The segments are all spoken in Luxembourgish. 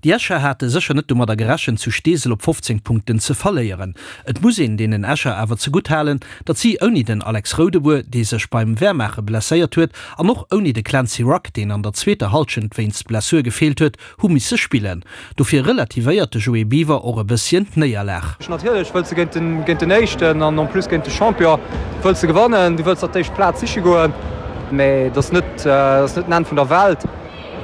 Déi Escher hate sécher net domadder gerechent, zu Steesel op 15 Punkten ze verléieren. Et muss een deenen Escher awer zegutt halen, datt si ouni den Alex Roudebour, dee sech beim Wehrmaache blesséiert huet, an och ouni de Clancy Rugg, deen an der zweeter Hallschent wéinst Blessur gefeelt huet, hu misse spillen. Dofir relativéiert de Joé Biwer och e bësschen d'Néierlag. Natierlech wëlls de géint den Éischten an en plus géint de Champion wëlls de gewannen. Du wëlls der d'éischt Plaz siche goen, mee et ass net den Enn vun der Welt.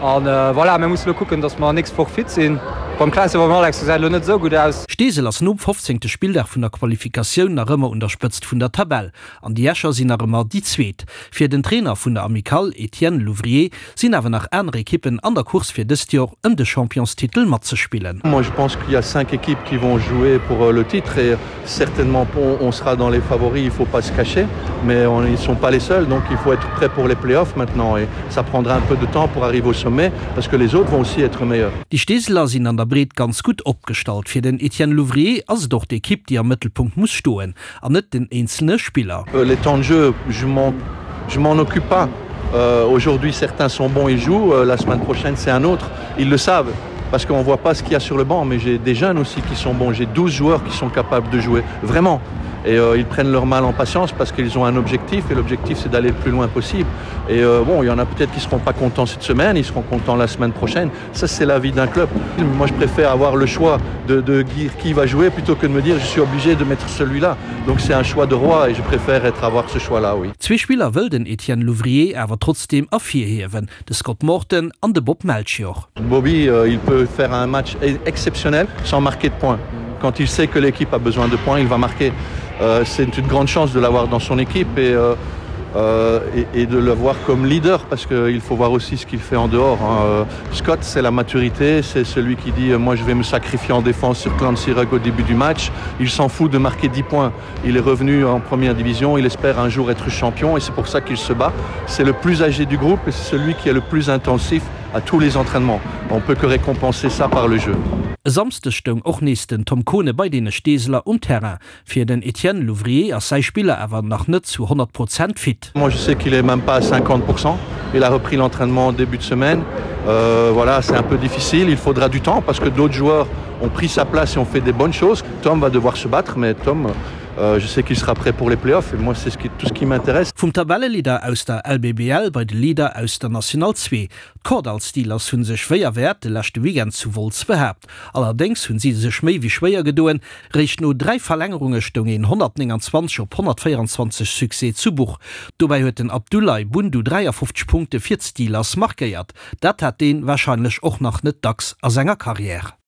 An voilà, mir musse lo kucken, datt mer nächst Woch fit sinn. Beim Clancy a beim Alex gesäit elo net esou gutt aus. Steesel ass nom 15. Spilldag vun der Qualifikatioun nach ëmmer un der Spëtzt vun der Tabell an déi Escher sinn nach ëmmer déi Zweet. Fir den Trainer vun der Amicale, Etienne Louvrier, sinn awer nach aner Ekippen an der Course fir dëst Joer ëm de Championstitel matzespillen. Moi je pense qu'il y a 5 équipes qui vont jouer pour le titre et certainement on sera dans les favoris, il faut pas se cacher mais on, ils sont pas les seuls donc il faut être prêt pour les playoffs maintenant et ça prendra un peu de temps pour arriver au sommet parce que les autres vont aussi être meilleurs. Déi Steeseler sinn an der Breet ganz gutt opgestallt. Fir den Etienne Louvrier ass et och d'Ekipp déi am Mëttelpunkt muss stoen an net den eenzelne Spiller. Les temps de jeu, je m'en je m'en occupe pas. Euh, aujourd'hui certains sont bons ils jouent, euh, la semaine prochaine c'est un autre. Ils le savent parce qu'on voit pas ce qu'il y a sur le banc, mais j'ai des jeunes aussi qui sont bons, j'ai 12 joueurs qui sont capables de jouer vraiment et euh, ils prennent leur mal en patience parce qu'ils ont un objectif et l'objectif c'est d'aller le plus loin possible et euh, bon il y en a peut-être qui seront pas contents cette semaine ils seront contents la semaine prochaine ça c'est la vie d'un club moi je préfère avoir le choix de, de dire qui va jouer plutôt que de me dire je suis obligé de mettre celui-là donc c'est un choix de roi et je préfère être avoir ce choix là oui Zwee Spiller wëll den Etienne Louvrier awer trotzdeem ervirhiewen, de Scott Morton an de Bob Melchior. Bobby euh, il peut faire un match e-, exceptionnel sans marquer de points. Quand il sait que l'équipe a besoin de points, il va marquer. Euh, c'est une grande chance de l'avoir dans son équipe et, euh, euh, et, et de le voir comme leader parce qu'il faut voir aussi ce qu'il fait en dehors. Hein. Euh, Scott, c'est la maturité, c'est celui qui dit euh, moi je vais me sacrifier en défense sur Clancy Rugg au début du match. Il s'en fout de marquer 10 points. Il est revenu en première division, il espère un jour être champion et c'est pour ça qu'il se bat. C'est le plus âgé du groupe et c'est celui qui est le plus intensif à tous les entraînements. On peut que récompenser ça par le jeu. E Samschdeg stoung och nees den Tom Kohne bei deene Steeseler um Terrain. Fir den Etienne Louvrier ass säi Spiller awer nach net zu 100 Prozent fit. Moi je sais qu'il est même pas à 50 Il a repris l'entraînement en début de semaine. Euh, voilà, c'est un peu difficile, il faudra du temps parce que d'autres joueurs ont pris sa place et ont fait des bonnes choses. Tom va devoir se battre, mais Tom, euh, je sais qu'il sera prêt pour les playoffs et moi c'est ce qui, tout ce qui m'intéresse. Vum Tabelleleader aus der LBBL bei de Leader aus der National 2. D'Kordall Steelers hu sech wéi erwäert de leschte Weekend zu Wolz behaapt. Allerdéngs hunn si sech méi wéi schwéier gedoen. Réischt no 3 Verlängerunge stoung een 129 op 124 Succès zu Buch. Dobäi huet den Abdoulaye Bundu 53 Punkte fir d'Steelers markéiert. Dat hat deen warscheinlech och nach net dacks a senger Karriär.